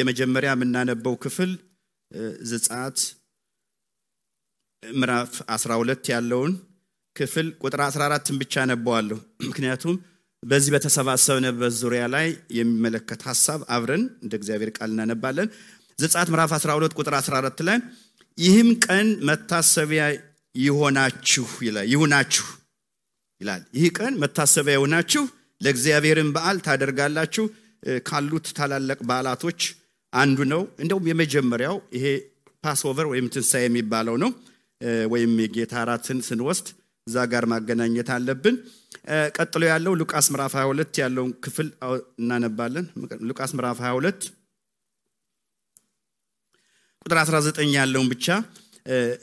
የመጀመሪያ የምናነበው ክፍል ዘጸአት ምዕራፍ 12 ያለውን ክፍል ቁጥር 14ን ብቻ አነባዋለሁ ምክንያቱም በዚህ በተሰባሰብነበት ዙሪያ ላይ የሚመለከት ሐሳብ አብረን እንደ እግዚአብሔር ቃል እናነባለን ዘጸአት ምዕራፍ 12 ቁጥር 14 ላይ ይህም ቀን መታሰቢያ ይሆናችሁ ይላል ይህ ቀን መታሰቢያ ይሆናችሁ ለእግዚአብሔርን በዓል ታደርጋላችሁ ካሉት ታላላቅ በዓላቶች አንዱ ነው እንደውም የመጀመሪያው ይሄ ፓስኦቨር ወይም ትንሣኤ የሚባለው ነው ወይም የጌታ እራትን ስንወስድ እዛ ጋር ማገናኘት አለብን ቀጥሎ ያለው ሉቃስ ምዕራፍ 22 ያለውን ክፍል እናነባለን ሉቃስ ምዕራፍ 22 ቁጥር 19 ያለውን ብቻ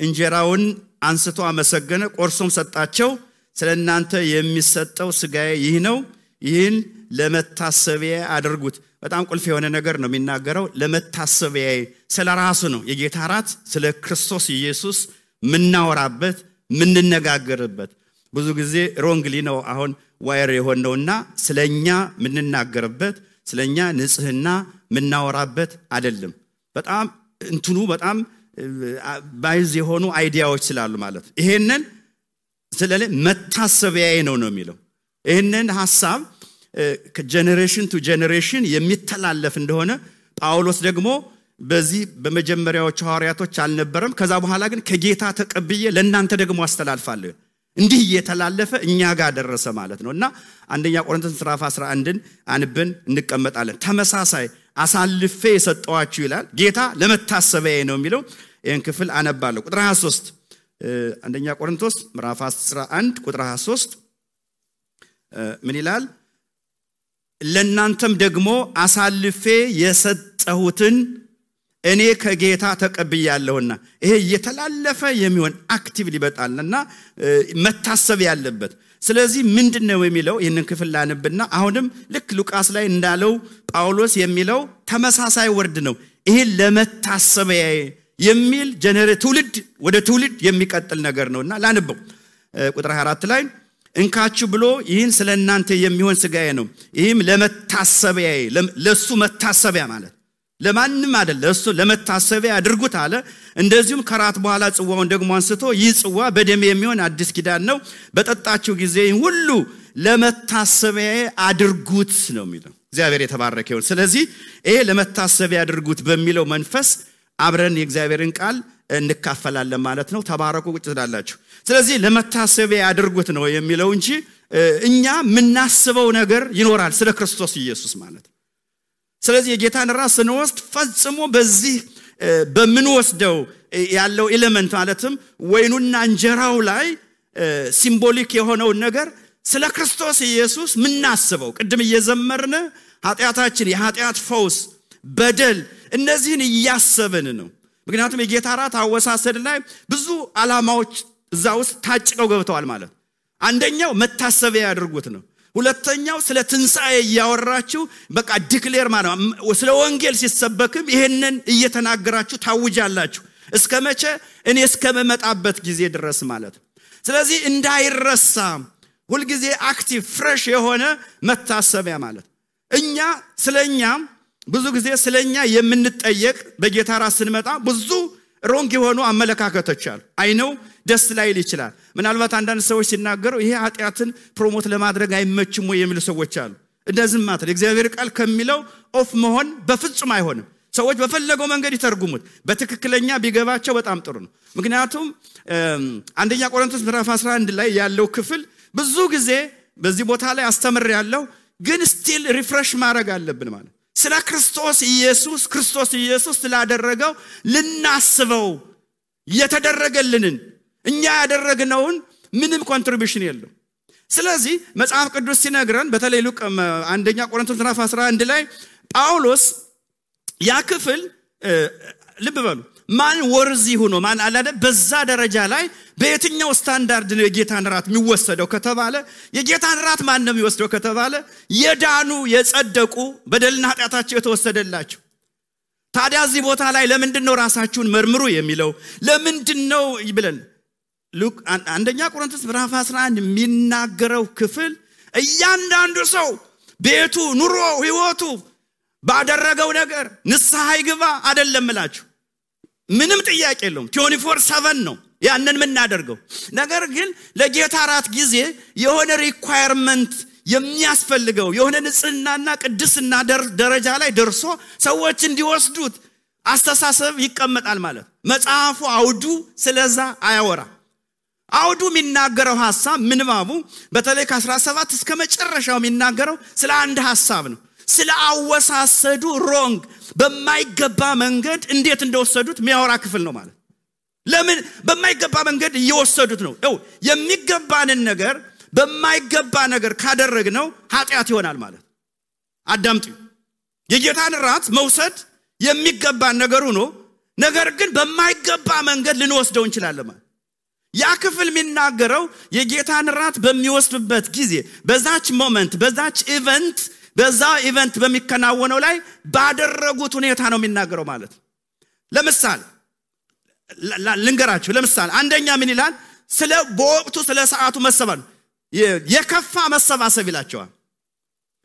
እንጀራውን አንስቶ አመሰገነ ቆርሶም ሰጣቸው ስለናንተ የሚሰጠው ሥጋዬ ይህ ነው ይህን ለመታሰቢያ አድርጉት በጣም ቁልፍ የሆነ ነገር ነው የሚናገረው ለመታሰቢያ ስለራሱ ነው የጌታ እራት ስለ ክርስቶስ ኢየሱስ ምናወራበት ምንነጋገርበት ብዙ ጊዜ ሮንግሊ ነው አሁን ዋየር የሆነውና ስለኛ ምንናገርበት ስለኛ ንጽህና ምናወራበት አይደለም በጣም እንትኑ በጣም ባይዝ የሆኑ አይዲያዎች ስላሉ ማለት ይሄንን ስለለ መታሰቢያዬ ነው የሚለው ይሄንን ሐሳብ ከጄነሬሽን ቱ ጄነሬሽን የሚተላለፍ እንደሆነ ጳውሎስ ደግሞ በዚህ በመጀመሪያዎቹ ሐዋርያቶች አልነበረም ከዛ በኋላ ግን ከጌታ ተቀብዬ ለእናንተ ደግሞ አስተላልፋለሁ እንዲህ እየተላለፈ እኛ ጋር ደረሰ ማለት ነውና አንደኛ ቆሮንቶስ ምዕራፍ 11ን አንብን እንቀመጣለን ተመሳሳይ አሳልፌ የሰጠዋችሁ ይላል ጌታ ለመታሰቢያዬ ነው የሚለው ይሄን ክፍል አነባለሁ ቁጥር 23 አንደኛ ቆሮንቶስ ምዕራፍ 11 ቁጥር 23 ምን ይላል ለእናንተም ደግሞ አሳልፌ የሰጠሁትን እኔ ከጌታ ተቀብያለሁና ይሄ የተላለፈ የሚሆን አክቲቭሊ በጣልና መታሰብ ያለበት ስለዚህ ምንድነው የሚለው ይሄንን ክፍል ላንብና አሁንም ልክ ሉቃስ ላይ እንዳለው ጳውሎስ የሚለው ተመሳሳይ ወርድ ነው ይሄ ለመታሰቢያ የሚል ትውልድ ወደ ትውልድ የሚቀጥል ነገር ነውና ላንበው ቁጥር 24 ላይ እንካችሁ ብሎ ይህን ስለናንተ የሚሆን ሥጋዬ ነው ይህም ለመታሰቢያ ለሱ መታሰቢያ ማለት ለማንም አይደል ለሱ ለመታሰቢያ አድርጉት አለ እንደዚሁም ከራት በኋላ ጽዋውን ደግሞ አንስቶ ይህ ጽዋ በደም የሚሆን አዲስ ኪዳን ነው በጠጣችሁ ጊዜ ሁሉ ለመታሰቢያ አድርጉት ነው የሚለው እግዚአብሔር የተባረከ ይሁን ስለዚህ ይሄ ለመታሰቢያ አድርጉት በሚለው መንፈስ አብረን የእግዚአብሔርን ቃል እንካፈላለን ማለት ነው ተባረኩ ቁጭ ትላላችሁ ስለዚህ ለመታሰቢያ አድርጉት ነው የሚለው እንጂ እኛ ምናስበው ነገር ይኖራል ስለ ክርስቶስ ኢየሱስ ማለት ስለዚህ የጌታን ራስ ስንወስድ ፈጽሞ በዚህ በምንወስደው ያለው ኤሌመንት ማለትም ወይኑና እንጀራው ላይ ሲምቦሊክ የሆነው ነገር ስለ ክርስቶስ ኢየሱስ ምናስበው ቅድም እየዘመርን ኃጢያታችን የኃጢያት ፈውስ በደል እነዚህን እያሰብን ነው ምክንያቱም የጌታ ራት አወሳሰድ ላይ ብዙ ዓላማዎች እዛ ውስጥ ታጭቀው ገብተዋል ማለት አንደኛው መታሰቢያ ያድርጉት ነው ሁለተኛው ስለ ትንሣኤ ያወራችሁ በቃ ዲክሌር ማለት ስለ ወንጌል ሲሰበክም ይሄንን እየተናገራችሁ ታውጃላችሁ እስከመቼ እኔ እስከመመጣበት ጊዜ ድረስ ማለት ስለዚህ እንዳይረሳ ሁሉ ጊዜ አክቲቭ ፍሬሽ የሆነ መታሰቢያ ማለት እኛ ስለኛ ብዙ ጊዜ ስለኛ የምንጠየቅ በጌታ ራስ ስንመጣ ብዙ ሮንግ የሆኑ አመለካከቶች አሉ አይነው ደስ ላይል ይችላል ምናልባት አንዳንድ ሰዎች ሲናገሩ ይሄ ኃጢያትን ፕሮሞት ለማድረግ አይመችም ወይ የሚሉ ሰዎች አሉ እንደዚህ ማለት እግዚአብሔር ቃል ከሚለው ኦፍ መሆን በፍጹም አይሆንም ሰዎች በፈለገው መንገድ ይተርጉሙት በትክክለኛ ቢገባቸው በጣም ጥሩ ነው ምክንያቱም አንደኛ ቆሮንቶስ ምዕራፍ 11 ላይ ያለው ክፍል ብዙ ጊዜ በዚህ ቦታ ላይ አስተምር ያለው ግን ስቲል ሪፍሬሽ ማድረግ አለብን ማለት ስለ ክርስቶስ ኢየሱስ ስላደረገው ልናስበው የተደረገልንን እኛ ያደረግነውን ምንም ኮንትሪቢዩሽን የለው ስለዚህ መጽሐፍ ቅዱስ ሲነግረን በተለይ አንደኛ ቆሮንቶስ ምዕራፍ 11 ላይ ጳውሎስ ያ ክፍል ልብ በሉ ማን ወርዚ ሆኖ ማን አላደ በዛ ደረጃ ላይ በየትኛው ስታንዳርድ ነው የጌታን ራት የሚወሰደው ከተባለ የጌታን ራት ማን ነው የሚወስደው ከተባለ የዳኑ የጸደቁ በደልና ኃጢያታቸው የተወሰደላቸው ታዲያ እዚህ ቦታ ላይ ለምንድነው ራሳችሁን መርምሩ የሚለው ለምንድነው ይብለን አንደኛ ቆሮንቶስ ምዕራፍ 11 የሚናገረው ክፍል እያንዳንዱ ሰው ቤቱ ኑሮ ህይወቱ ባደረገው ነገር ንስሐ ይግባ አይደለም እላችሁ ምንም ጥያቄ የለውም 24/7 ነው ያንን ምን እናደርገው ነገር ግን ለጌታ ራት ጊዜ የሆነ ሪኳየርመንት የሚያስፈልገው የሆነ ንጽህናና ቅድስና ደረጃ ላይ ደርሶ ሰዎች እንዲወስዱት አስተሳሰብ ይቀመጣል ማለት መጽሐፉ አውዱ ስለዛ አያወራ አውዱ የሚናገረው ሐሳብ ምንባቡ በተለይ ከ17 እስከ መጨረሻው የሚናገረው ስለ አንድ ሐሳብ ነው ስለ አወሳሰዱ ሮንግ በማይገባ መንገድ እንዴት እንደወሰዱት የሚያወራ ክፍል ነው ማለት ለምን በማይገባ መንገድ እየወሰዱት ነው የሚገባንን ነገር በማይገባ ነገር ካደረግነው ኃጢያት ይሆናል ማለት አዳምጡ የጌታን ራት መውሰድ የሚገባን ነገር ሆኖ ነገር ግን በማይገባ መንገድ ልንወስደው እንችላለን ማለት ያ ክፍል የሚናገረው የጌታን ራት በሚወስድበት ጊዜ በዛች ሞመንት በዛች ኢቨንት በሚከናወነው ላይ ባደረጉት ሁኔታ ነው የሚናገረው ማለት ለምሳሌ ልንገራችሁ ለምሳሌ አንደኛ ምን ይላል ስለ በወቅቱ ስለ ሰዓቱ መሰባሰብ የከፋ መሰባሰብ ይላቸዋል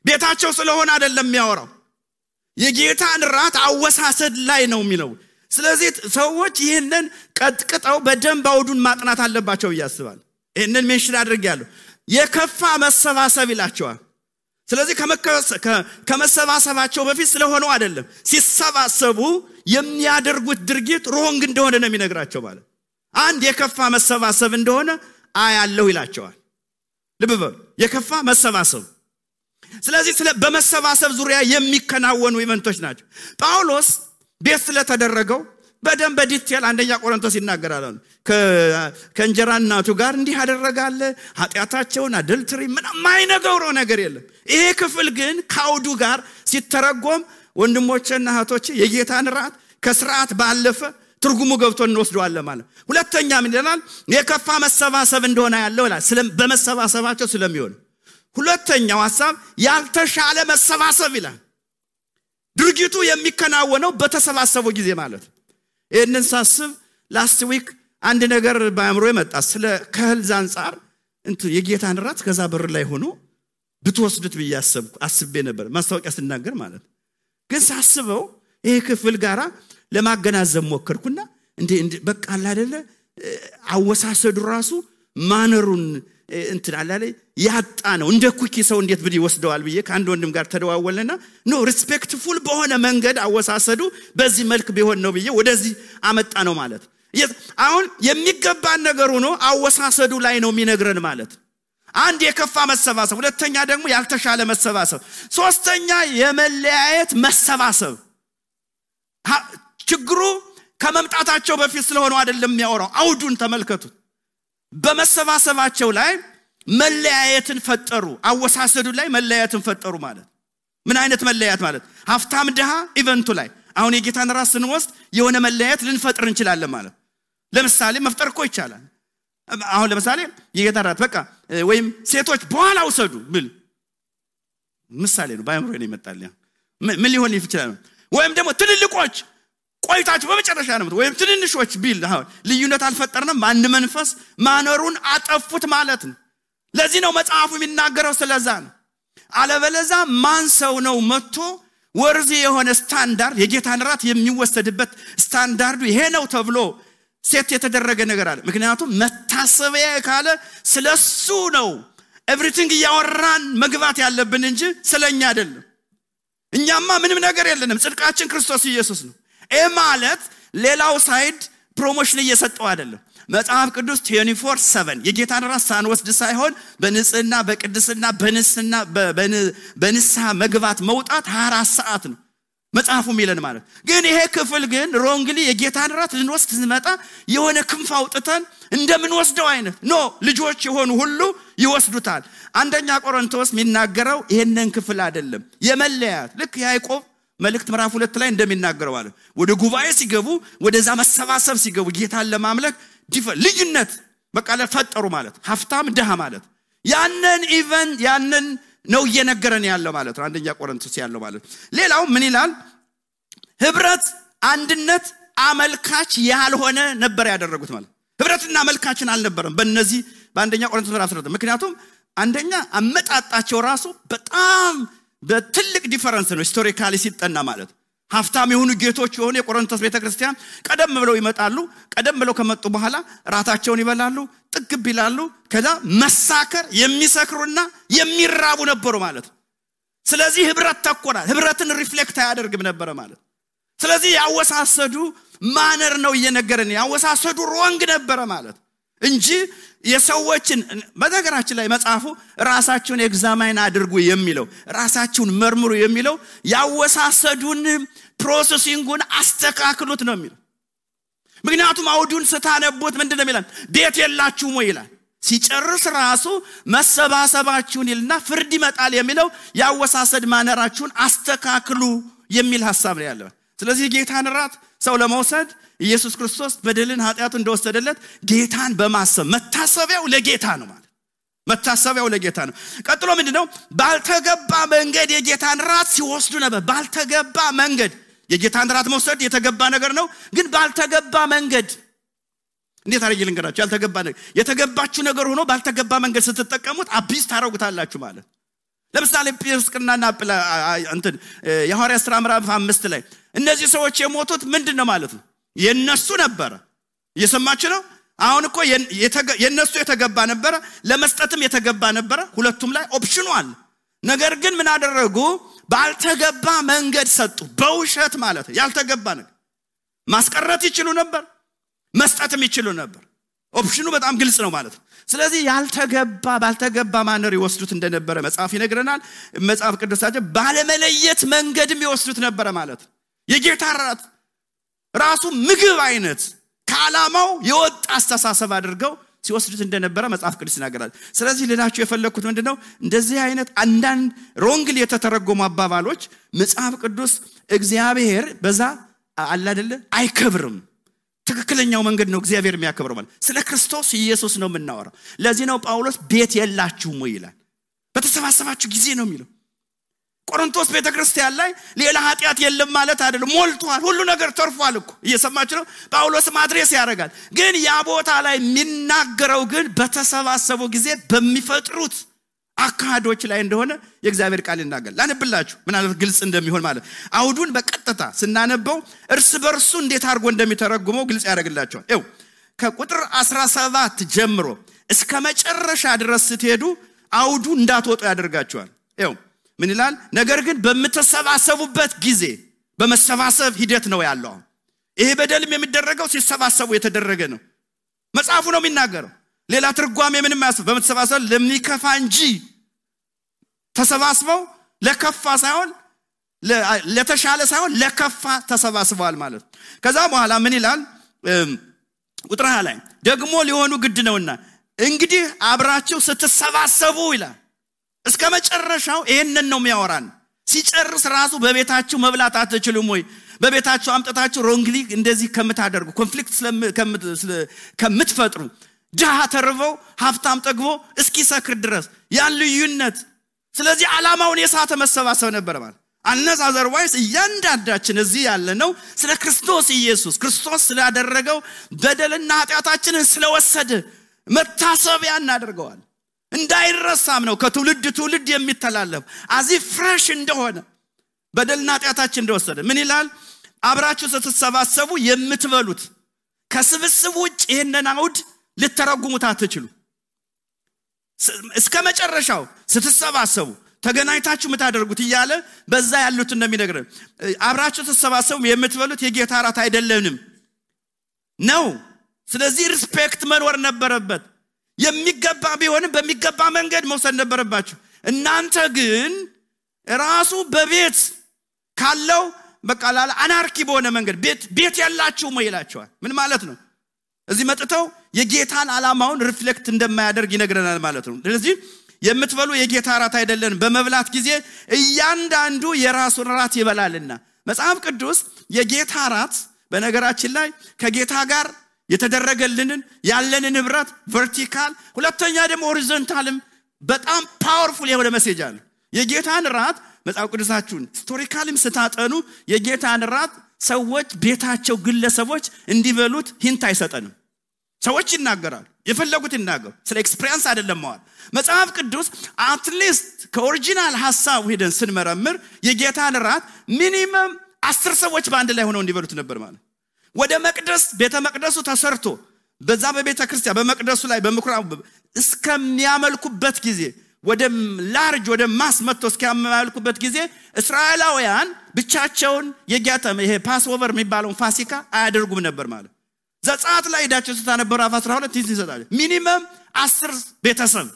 ቤታቸው ስለሆነ አይደለም የሚያወራው የጌታን ራት አወሳሰድ ላይ ነው የሚለው ስለዚህ ሰዎች ይሄንን ቀጥቅጠው በደንብ አውዱን ማጥናት አለባቸው ይያስባል ይሄንን ሜንሽን አድርጌያለሁ የከፋ መሰባሰብ ይላቸዋል ስለዚህ ከመሰባሰባቸው በፊት ስለሆነው አይደለም ሲሰባሰቡ የሚያደርጉት ድርጊት ሮንግ እንደሆነ ነው የሚነግራቸው ማለት አንድ የከፋ መሰባሰብ እንደሆነ አያለው ይላቸዋል ልብበል የከፋ መሰባሰብ ስለዚህ በመሰባሰብ ዙሪያ የሚከናወኑ ኢቨንቶች ናቸው ጳውሎስ ቤት ስለተደረገው በደንብ በዲቴል አንደኛ ቆሮንቶስ ይናገራል ከእንጀራ እናቱ ጋር እንዲህ ያደረጋለ ኃጢያታቸውን አደልትሪ ምንም ማይነገረው ነገር የለም ይሄ ክፍል ግን ካውዱ ጋር ሲተረጎም ወንድሞቼና እህቶቼ የጌታን ራት ከሥርዓት ባለፈ ትርጉሙ ገብቶ እንወስደዋለን ማለት ሁለተኛ ምን ይላል የከፋ መሰባሰብ እንደሆነ ያለው በመሰባሰባቸው ስለሚሆን ሁለተኛው ሐሳብ ያልተሻለ መሰባሰብ ይላል ድርጊቱ የሚከናወነው በተሰባሰበው ጊዜ ማለት ይሄንን ሳስብ ላስት ዊክ አንድ ነገር ባያምሮ የመጣ ስለ ከህልዝ አንፃር የጌታን ራት ከዛ በር ላይ ሆኖ ብትወስዱት አስቤ ነበር ማስታወቂያ ሲናገር ማለት ግን ሳስበው ይሄ ክፍል ጋራ ለማገናዘብ ሞከርኩና እንዴ በቃ አይደለ አወሳሰዱ ራሱ ማነሩን አላለ ያጣ ነው እንደ ኩኪ ሰው እንዴት ብድ ይወስደዋል ብዬ ከአንድ ወንድም ጋር ተደዋወለና ኖ ሪስፔክትፉል በሆነ መንገድ አወሳሰዱ በዚህ መልክ ቢሆን ነው ብዬ ወደዚህ አመጣ ነው ማለት አሁን የሚገባን ነገር ሆኖ አወሳሰዱ ላይ ነው የሚነግረን ማለት አንድ የከፋ መሰባሰብ ሁለተኛ ደግሞ ያልተሻለ መሰባሰብ ሶስተኛ የመለያየት መሰባሰብ ችግሩ ከመምጣታቸው በፊት ስለሆነው አይደለም የሚያወራው አውዱን ተመልከቱት በመሰባሰባቸው ላይ መለያየትን ፈጠሩ አወሳሰዱ ላይ መለያየትን ፈጠሩ ማለት ምን አይነት መለያየት ማለት ሀፍታም ደሃ ኢቨንቱ ላይ አሁን የጌታን ራስ ስንወስድ የሆነ መለያየት ልንፈጥር እንችላለን ማለት ለምሳሌ መፍጠር እኮ ይቻላል አሁን ለምሳሌ የጌታን ራት በቃ ወይም ሴቶች በኋላ ወሰዱ ብል ምሳሌ ነው ባይምሮ ነው ይመጣል ምን ሊሆን ይችላል ወይም ደግሞ ትልልቆች ቆይታችሁ በመጨረሻ ነው ወይም ትንንሾች ቢል አሁን ልዩነት አልፈጠርንም አንድ መንፈስ ማነሩን አጠፉት ማለት ነው ለዚህ ነው መጽሐፉ የሚናገረው ስለዛ ነው አለበለዛ ማን ሰው ነው መጥቶ ወርዚ የሆነ ስታንዳርድ የጌታን ራት የሚወሰድበት ስታንዳርዱ ይሄ ነው ተብሎ ሴት የተደረገ ነገር አለ ምክንያቱም መታሰቢያ ካለ ስለሱ ነው ኤቭሪቲንግ ያወራን መግባት ያለብን እንጂ ስለኛ አይደለም እኛማ ምንም ነገር የለንም ጽድቃችን ክርስቶስ ኢየሱስ ነው ማለት ሌላው ሳይድ ፕሮሞሽን እየሰጠው አይደለም መጽሐፍ ቅዱስ 24/7 የጌታን ራት ሳንወስድ ሳይሆን በንጽህና በቅድስና በንስሐ መግባት መውጣት 24 ሰዓት ነው መጽሐፉ የሚለን ማለት ግን ይሄ ክፍል ግን ሮንግሊ የጌታን ራት ልንወስድ ስንመጣ የሆነ ክንፍ አውጥተን እንደምንወስደው አይነት ኖ ልጆች የሆኑ ሁሉ ይወስዱታል አንደኛ ቆሮንቶስ የሚናገረው ይሄንን ክፍል አይደለም የመለያት ልክ ያዕቆብ መልእክት ምዕራፍ 2 ላይ እንደሚናገረው ማለት ወደ ጉባኤ ሲገቡ ወደዛ መሰባሰብ ሲገቡ ጌታን ለማምለክ ልዩነት በቃ ለፈጠሩ ማለት ሀፍታም ደሃ ማለት ያንን ነው እየነገረን ያለው ማለት አንደኛ ቆሮንቶስ ያለው ማለት ሌላው ምን ይላል ህብረት አንድነት አመልካች ያልሆነ ነበር ያደረጉት ማለት ህብረትና አመልካችን አልነበረም በእነዚህ በአንደኛ ቆሮንቶስ ምዕራፍ 10 ምክንያቱም አንደኛ አመጣጣቸው ራሱ በጣም በትልቅ ዲፈረንስ ነው ሂስቶሪካሊ ሲጠና ማለት ሀፍታም የሆኑ ጌቶች የሆኑ የቆሮንቶስ ቤተክርስቲያን ቀደም ብለው ይመጣሉ ቀደም ብለው ከመጡ በኋላ ራታቸውን ይበላሉ ጥግብ ይላሉ ከዛ መሳከር የሚሰክሩና የሚራቡ ነበሩ ማለት ስለዚህ ህብረት ተቆራል ህብረትን ሪፍሌክት ያደርግም ነበር ማለት ስለዚህ ያወሳሰዱ ማነር ነው እየነገረን ያወሳሰዱ ሮንግ ነበር ማለት እንጂ የሰዎችን በነገራችን ላይ መጽሐፉ ራሳችሁን ኤግዛማይን አድርጉ የሚለው ራሳችሁን መርምሩ የሚለው ያወሳሰዱን ፕሮሰሲንጉን አስተካክሉት ነው የሚለው ምክንያቱም አውዱን ስታነቡት ምንድነው የሚለው ቤት የላችሁም ወይ ይላል ሲጨርስ ራሱ መሰባሰባችሁን ይልና ፍርድ ይመጣል የሚለው ያወሳሰድ ማነራችሁን አስተካክሉ የሚል ሐሳብ ነው ያለው ስለዚህ ጌታን ራት ሰው ለመውሰድ ኢየሱስ ክርስቶስ በደልን ኃጢያቱን እንደወሰደለት ጌታን በማሰብ መታሰቢያው ለጌታ ነው ማለት መታሰቢያው ለጌታ ነው ቀጥሎ ምንድነው ባልተገባ መንገድ የጌታን ራት ሲወስዱ ነበር ባልተገባ መንገድ የጌታን ራት መውሰድ የተገባ ነገር ነው ግን ባልተገባ መንገድ እንዴት አርጌ ልንገራችሁ ያልተገባ ነገር የተገባችሁ ነገር ሆኖ ባልተገባ መንገድ ስትጠቀሙት አቢስ ታረጉታላችሁ ማለት ለምሳሌ ጴጥሮስና እንትን የሐዋርያት ሥራ ምዕራፍ 5 ላይ እነዚህ ሰዎች የሞቱት ምንድነው ማለት ነው የነሱ ነበር እየሰማችሁ ነው አሁን እኮ የነሱ የተገባ ነበር ለመስጠትም የተገባ ነበር ሁለቱም ላይ ኦፕሽኑ አለ ነገር ግን ምን አደረጉ ባልተገባ መንገድ ሰጡ በውሸት ማለት ያልተገባ ነገር ማስቀረት ይችሉ ነበር መስጠትም ይችሉ ነበር ኦፕሽኑ በጣም ግልጽ ነው ማለት ስለዚህ ያልተገባ ባልተገባ ማነር ይወስዱት እንደነበረ መጽሐፍ ይነግረናል መጽሐፍ ቅዱሳችን ባለመለየት መንገድም ይወስዱት ነበር ማለት የጌታ ራት ራሱ ምግብ አይነት ከዓላማው የወጣ አስተሳሰብ አድርገው ሲወስዱት እንደነበረ መጽሐፍ ቅዱስ ይናገራል ስለዚህ ልላችሁ የፈለኩት ምንድነው እንደዚህ አይነት አንዳንድ ሮንግሊ የተተረጎሙ አባባሎች መጽሐፍ ቅዱስ እግዚአብሔር በዛ አለ አይደለ አይከብርም ትክክለኛው መንገድ ነው እግዚአብሔር የሚያከብረው ማለት ስለ ክርስቶስ ኢየሱስ ነው የምናወራው ለዚህ ነው ጳውሎስ ቤት የላችሁም ወይ ይላል በተሰባሰባችሁ ጊዜ ነው የሚለው ቆሮንቶስ ቤተክርስቲያን ላይ ሌላ ኃጢያት የለም ማለት አይደለም ሞልቷል ሁሉ ነገር ተርፏል እኮ እየሰማችሁ ነው ጳውሎስ ማድረስ ያደርጋል ግን ያ ቦታ ላይ የሚናገረው ግን በተሰባሰቡ ጊዜ በሚፈጥሩት አካዶች ላይ እንደሆነ የእግዚአብሔር ቃል ይናገራል ላንብላችሁ ምናልባት ግልጽ እንደሚሆን ማለት አውዱን በቀጥታ ስናነበው እርስ በርሱ እንዴት አድርጎ እንደሚተረጉመው ግልጽ ያደርግላችኋል ይው ከቁጥር 17 ጀምሮ እስከ መጨረሻ ድረስ ስትሄዱ አውዱ እንዳትወጡ ያደርጋችኋል ይው ምን ይላል ነገር ግን በመተሰባሰቡበት ጊዜ በመሰባሰብ ሂደት ነው ያለው ይሄ በደልም የሚደረገው ሲሰባሰቡ የተደረገ ነው መጽሐፉ ነው የሚናገረው ሌላ ትርጓሜ ምንም ያስብ በመተሰባሰብ ለሚከፋ እንጂ ተሰባስበው ለከፋ ሳይሆን ለተሻለ ሳይሆን ለከፋ ተሰባስበዋል ማለት ከዛ በኋላ ምን ይላል ቁጥር 20 ላይ ደግሞ ሊሆኑ ግድ ነውና እንግዲህ አብራችሁ ስትሰባሰቡ ይላል እስከ መጨረሻው ይሄንን ነው የሚያወራን ሲጨርስ ራሱ በቤታችሁ መብላት አትችሉም ወይ በቤታችሁ አምጣታችሁ ሮንግሊ እንደዚህ ከምታደርጉ ኮንፍሊክት ከምትፈጥሩ ጃሃ ተርበው ሀብታም ጠግቦ እስኪ ሰክር ድረስ ያን ልዩነት ስለዚህ ዓላማውን የሳተ መሰባሰብ ነበር ማለት አንነስ አዘርዋይስ እያንዳንዳችን እዚህ ያለ ነው ስለ ክርስቶስ ኢየሱስ ክርስቶስ ስላደረገው በደልና ኃጢያታችንን ስለወሰደ መታሰቢያ እናደርገዋል እንዳይረሳም ነው ከትውልድ ትውልድ የሚተላለፍ አዚ ፍሬሽ እንደሆነ በደልና ኃጢያታችን እንደወሰደ ምን ይላል አብራችሁ ስትሰባሰቡ የምትበሉት ከስብስብ ውጭ ይሄንን አውድ ልተረጉሙት አትችሉ እስከ መጨረሻው ስትሰባሰቡ ተገናኝታችሁ ምታደርጉት ይያለ በዛ ያሉት እንደሚነግረን አብራችሁ ስትሰባሰቡ የምትበሉት የጌታ ራት አይደለንም ነው ስለዚህ ሪስፔክት መኖር ነበረበት የሚገባ ቢሆንም በሚገባ መንገድ መውሰድ ነበረባችሁ እናንተ ግን ራሱ በቤት ካለው በቃላላ አናርኪ በሆነ መንገድ ቤት ያላችሁ ይላቸዋል ምን ማለት ነው እዚህ መጥተው የጌታን ዓላማውን ሪፍሌክት እንደማያደርግ ይነግረናል ማለት ነው ስለዚህ የምትበሉ የጌታ ራት አይደለን በመብላት ጊዜ እያንዳንዱ የራሱን ራት ይበላልና መጽሐፍ ቅዱስ የጌታ ራት በነገራችን ላይ ከጌታ ጋር የተደረገልንን ያለንን ህብረት ቨርቲካል ሁለተኛ ደግሞ ሆሪዞንታልም በጣም ፓወርፉል የሆነ ሜሴጅ አለ የጌታን ራት መጽሐፍ ቅዱሳችሁን ሂስቶሪካልም ስታጠኑ የጌታን ራት ሰዎች ቤታቸው ግለሰቦች እንዲበሉት ሂንት አይሰጠንም ሰዎች ይናገራሉ የፈለጉት ይናገሩ ስለ ኤክስፒሪየንስ አይደለም ማለት መጽሐፍ ቅዱስ አትሊስት ከኦሪጂናል ሐሳብ ሄደን ስንመረምር የጌታን ራት ሚኒመም 10 ሰዎች በአንድ ላይ ሆነው እንዲበሉት ነበር ማለት ወደ መቅደስ ቤተ መቅደሱ ተሰርቶ በዛ በቤተ ክርስቲያን በመቅደሱ ላይ በምኩራብ እስከሚያመልኩበት ጊዜ ወደ ላርጅ ወደ ማስ መጥቶ እስከሚያመልኩበት ጊዜ እስራኤላውያን ብቻቸውን የጌታም ይሄ ፓስኦቨር የሚባለውን ፋሲካ አያደርጉም ነበር ማለት ዘጸአት ላይ ሄዳችሁ ስታነበሩ 12 ይሰጣል ሚኒመም 10 ቤተሰብ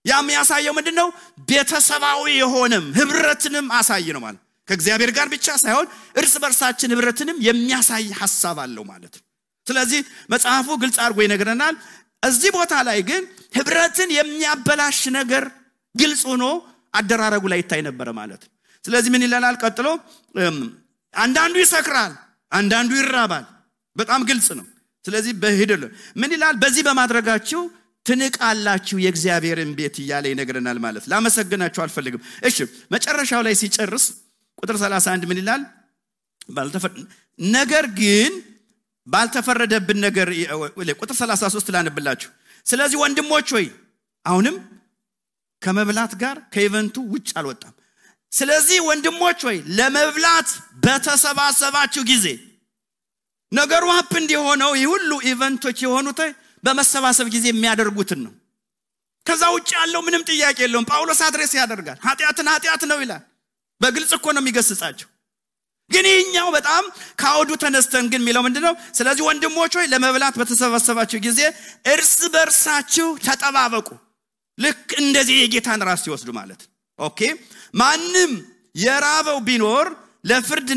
ያም ያሳየው ምንድነው ቤተሰባዊ የሆነም ህብረትንም አሳይ ነው ማለት ከእግዚአብሔር ጋር ብቻ ሳይሆን እርስ በርሳችን ህብረትንም የሚያሳይ ሐሳብ አለው ማለት ስለዚህ መጽሐፉ ግልጽ አድርጎ ይነግረናል እዚህ ቦታ ላይ ግን ህብረትን የሚያበላሽ ነገር ግልጽ ሆኖ አደራረጉ ላይ ይታይ ነበር ማለት ስለዚህ ምን ይላል ቀጥሎ አንዳንዱ ይሰክራል አንዳንዱ ይራባል በጣም ግልጽ ነው ስለዚህ በሂደል ምን ይላል በዚህ በማድረጋችሁ ትንቃላችሁ የእግዚአብሔርን ቤት ይያለ ይነግረናል ማለት ላመሰግናችሁ አልፈልግም እሺ መጨረሻው ላይ ሲጨርስ ቁጥር 31 ምን ይላል ነገር ግን ባልተፈረደብን ነገር ቁጥር 33 ላንብላችሁ ስለዚህ ወንድሞች ሆይ አሁንም ከመብላት ጋር ከኢቨንቱ ውጭ አልወጣም ስለዚህ ወንድሞች ሆይ ለመብላት በተሰባሰባችሁ ጊዜ ነገሩ ሀፕ እንዲሆነው ይሁሉ ኢቨንቶች የሆኑት በመሰባሰብ ጊዜ የሚያደርጉትን ነው ከዛ ውጭ ያለው ምንም ጥያቄ የለውም ጳውሎስ አድሬስ ያደርጋል ኃጢአት ነው ይላል በግልጽ እኮ ነው የሚገስጻቸው ግን ይኛው በጣም ካውዱ ተነስተን ግን የሚለው ምንድነው ስለዚህ ወንድሞች ሆይ ለመብላት በተሰባሰባችሁ ጊዜ እርስ በርሳችሁ ተጠባበቁ ልክ እንደዚህ የጌታን ራስ ይወስዱ ማለት ኦኬ ማንም የራበው ቢኖር ለፍርድ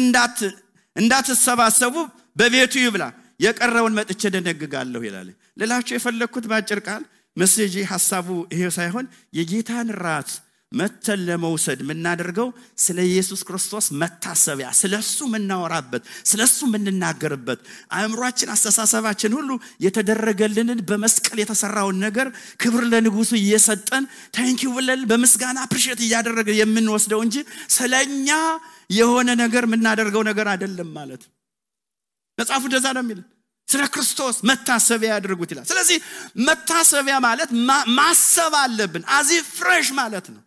እንዳትሰባሰቡ በቤቱ ይብላ የቀረውን መጥቼ ደነግጋለሁ ይላል ለላችሁ የፈለኩት ባጭር ቃል መሰጂ ሐሳቡ ይሄ ሳይሆን የጌታን ራት መተን ለመውሰድ ምናደርገው ስለ ኢየሱስ ክርስቶስ መታሰቢያ ስለሱ ምናወራበት ስለሱ ምንናገርበት አእምሮአችን አስተሳሰባችን ሁሉ የተደረገልንን በመስቀል የተሰራውን ነገር ክብር ለንጉሱ እየሰጠን ታንኪዩ ብለን በመስጋና አፕሪሺየት እያደረገ የምንወስደው እንጂ ስለኛ የሆነ ነገር ምናደርገው ነገር አይደለም ማለት መጽሐፉ እንደዛ ነው የሚል ስለ ክርስቶስ መታሰቢያ ያድርጉት ይላል ስለዚህ መታሰቢያ ማለት ማሰብ አለብን አዚ ፍሬሽ ማለት ነው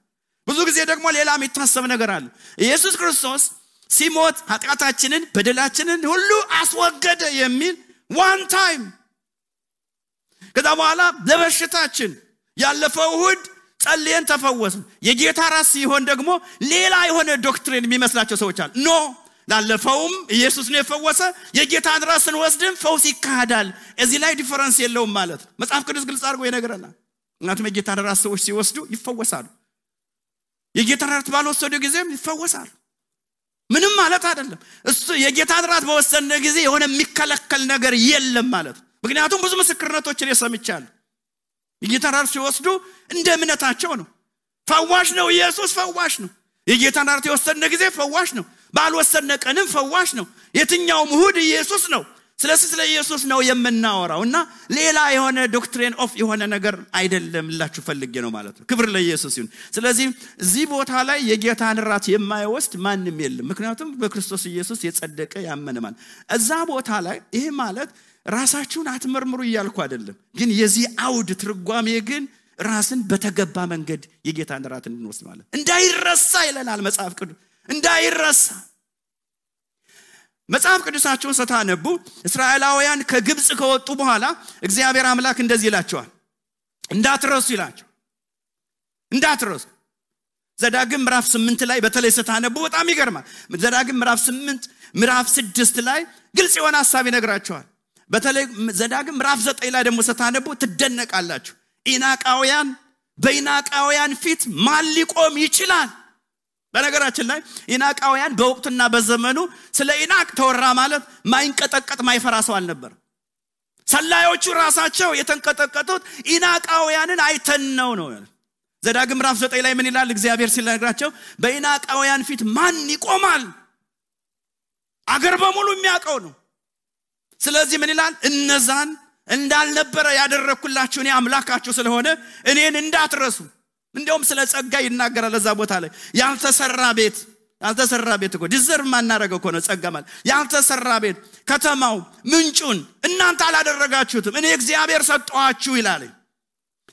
ብዙ ጊዜ ደግሞ ሌላ የሚታሰብ ነገር አለ ኢየሱስ ክርስቶስ ሲሞት ኃጢአታችንን በደላችንን ሁሉ አስወገደ የሚል ዋን ታይም ከዛ በኋላ ለበሽታችን ያለፈው እሁድ ጸልየን ተፈወስን የጌታ ራስ ሲሆን ደግሞ ሌላ የሆነ ዶክትሪን የሚመስላቸው ሰዎች አሉ ኖ ላለፈውም ኢየሱስ ነው የፈወሰ የጌታን ራስን ወስደን ፈውስ ይካዳል እዚህ ላይ ዲፈረንስ የለውም ማለት መጽሐፍ ቅዱስ ግልጽ አድርጎ ይነግረናል እናንተ የጌታን ራስ ሰዎች ሲወስዱ ይፈወሳሉ የጌታን ራስ ባልወሰዱ ጊዜም ይፈወሳሉ ምንም ማለት አይደለም እሱ የጌታን ራስ በወሰነ ጊዜ የሆነ የሚከለከል ነገር የለም ማለት ምክንያቱም ብዙ ምስክርነቶችን የሰምቻለሁ የጌታን ራስ ሲወስዱ እንደ እምነታቸው ነው ፈዋሽ ነው ኢየሱስ ፈዋሽ ነው የጌታን ራስ የወሰነ ጊዜ ፈዋሽ ነው ባልወሰነ ቀንም ፈዋሽ ነው የትኛው እሁድ ኢየሱስ ነው ስለ ኢየሱስ ነው የምናወራውና ሌላ የሆነ ዶክትሪን ኦፍ የሆነ ነገር አይደለም ላችሁ ፈልጌ ነው ማለት ነው ክብር ለኢየሱስ ይሁን ስለዚህ እዚህ ቦታ ላይ የጌታን ራት የማይወስድ ማንንም የለም ምክንያቱም በክርስቶስ ኢየሱስ የጸደቀ ያመነ ማለት እዛ ቦታ ላይ ይሄ ማለት ራሳችሁን አትመርምሩ ይያልኩ አይደለም ግን የዚህ አውድ ትርጓሜ ግን ራስን በተገባ መንገድ የጌታን ራት እንድንወስድ ማለት እንዳይረሳ ይለናል መጽሐፍ ቅዱስ እንዳይረሳ መጽሐፍ ቅዱሳቸውን ስታነቡ እስራኤላውያን ከግብጽ ከወጡ በኋላ እግዚአብሔር አምላክ እንደዚህ ይላቸዋል እንዳትረሱ ይላቸው እንዳትረሱ ዘዳግም ምዕራፍ 8 ላይ በተለይ ስታነቡ በጣም ይገርማል ዘዳግም ምዕራፍ 8 ምዕራፍ 6 ላይ ግልጽ የሆነ ሐሳብ ይነግራቸዋል በተለይ ዘዳግም ምዕራፍ 9 ላይ ደግሞ ስታነቡ ትደነቃላችሁ በኢናቃውያን ፊት ማን ሊቆም ይችላል በነገራችን ላይ ኢናቃውያን በወቅቱና በዘመኑ ስለ ኢናቅ ተወራ ማለት ማይንቀጠቀጥ ማይፈራ ሰው አልነበር ሰላዮቹ ራሳቸው የተንቀጠቀጡት ኢናቃውያንን አይተን ነው ዘዳግም ምዕራፍ 9 ላይ ምን ይላል እግዚአብሔር ሲነግራቸው በኢናቃውያን ፊት ማን ይቆማል አገር በሙሉ የሚያቀው ነው ስለዚህ ምን ይላል እነዛን እንዳልነበረ ያደረኩላችሁ እኔ አምላካችሁ ስለሆነ እኔን እንዳትረሱ እንደውም ስለ ጸጋ ይናገራል ለዛ ቦታ ላይ ያልተሰራ ቤት ያልተሰራ ቤት እኮ ዲዘርቭ ማናረገው እኮ ነው ጸጋ ማለት ያልተሰራ ቤት ከተማው ምንጩን እናንተ አላደረጋችሁትም እኔ እግዚአብሔር ሰጠኋችሁ ይላል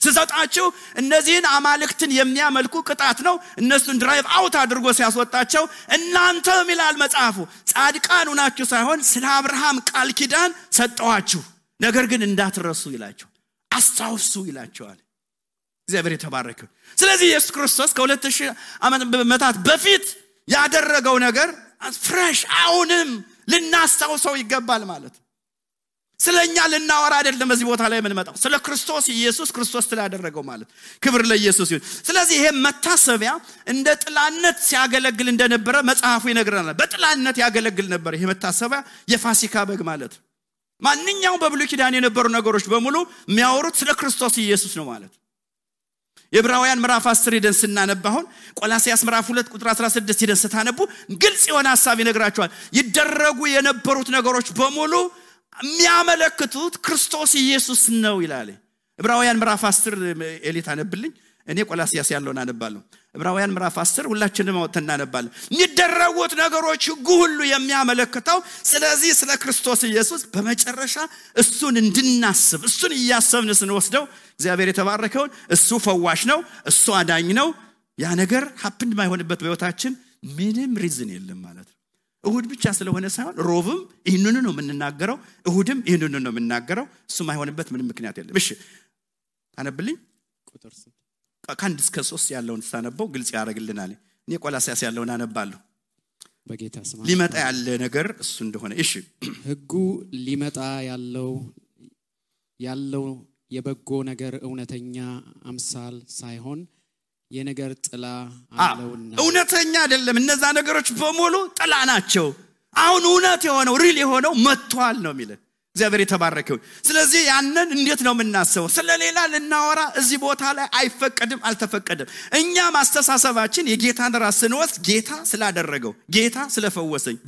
ሲሰጣችሁ እነዚህን አማልክትን የሚያመልኩ ቅጣት ነው እነሱን ድራይቭ አውት አድርጎ ሲያስወጣቸው እናንተም ይላል መጽሐፉ ጻድቃን ሆናችሁ ሳይሆን ስለ አብርሃም ቃል ኪዳን ሰጠኋችሁ ነገር ግን እንዳትረሱ ይላቸው አስታውሱ ይላቸዋል እግዚአብሔር የተባረከ ስለዚህ ኢየሱስ ክርስቶስ ከ2000 ዓመታት በፊት ያደረገው ነገር ፍሬሽ አሁንም ልናስታውሰው ይገባል ማለት ስለኛ ልናወራ አይደለም በዚህ ቦታ ላይ የምንመጣው ስለ ክርስቶስ ኢየሱስ ክርስቶስ ስላደረገው ማለት ክብር ለኢየሱስ ይሁን ስለዚህ ይሄ መታሰቢያ እንደ ጥላነት ሲያገለግል እንደነበረ መጽሐፉ ይነግረናል በጥላነት ያገለግል ነበር ይሄ መታሰቢያ የፋሲካ በግ ማለት ማንኛውም በብሉይ ኪዳን የነበሩ ነገሮች በሙሉ የሚያወሩት ስለ ክርስቶስ ኢየሱስ ነው ማለት የዕብራውያን ምዕራፍ 10 ሄደን ስናነባው ቆላስይስ ምዕራፍ 2 ቁጥር 16 ሄደን ስታነቡ ግልጽ የሆነ ሐሳብ ይነግራቸዋል ይደረጉ የነበሩት ነገሮች በሙሉ የሚያመለክቱት ክርስቶስ ኢየሱስ ነው ይላል ዕብራውያን ምዕራፍ 10 ኤሊት አነብልኝ እኔ ቆላስይስ ያለውን አነባለሁ ዕብራውያን ምዕራፍ 10 ሁላችንም አውጥተን እናነባለን የሚደረጉት ነገሮች ሁሉ የሚያመለክተው ስለዚህ ስለ ክርስቶስ ኢየሱስ በመጨረሻ እሱን እንድናስብ እሱን ያሰብን ስንወስደው እግዚአብሔር የተባረከውን እሱ ፈዋሽ ነው እሱ አዳኝ ነው ያ ነገር ሀፕን ማይሆንበት በህይወታችን ምንም ሪዝን የለም ማለት ነው እሁድ ብቻ ስለሆነ ሳይሆን ሮብም ይሄንን ነው የምንናገረው እሁድም ይሄንን ነው የምንናገረው እሱ ማይሆንበት ምንም ምክንያት የለም እሺ አነብልኝ ቁጥር 3 ከአንድ እስከ 3 ያለውን ሳነበው ግልጽ ያደርግልናል እኔ ቆላስይስ ያለውን አነባለሁ በጌታ ስም ሊመጣ ያለ ነገር እሱ እንደሆነ እሺ ህጉ ሊመጣ ያለው የበጎ ነገር እውነተኛ አምሳል ሳይሆን የነገር ጥላ አለውና እውነተኛ አይደለም እነዛ ነገሮች በሙሉ ጥላ ናቸው አሁን እውነት የሆነው ሪል የሆነው መጥቷል ነው የሚለው እግዚአብሔር የተባረከው ስለዚህ ያንን እንዴት ነው የምናስበው ስለሌላ ልናወራ እዚህ ቦታ ላይ አይፈቀድም አልተፈቀደም እኛ ማስተሳሰባችን የጌታን ራስ ስንወስድ ጌታ ስላደረገው ጌታ ስለፈወሰኝ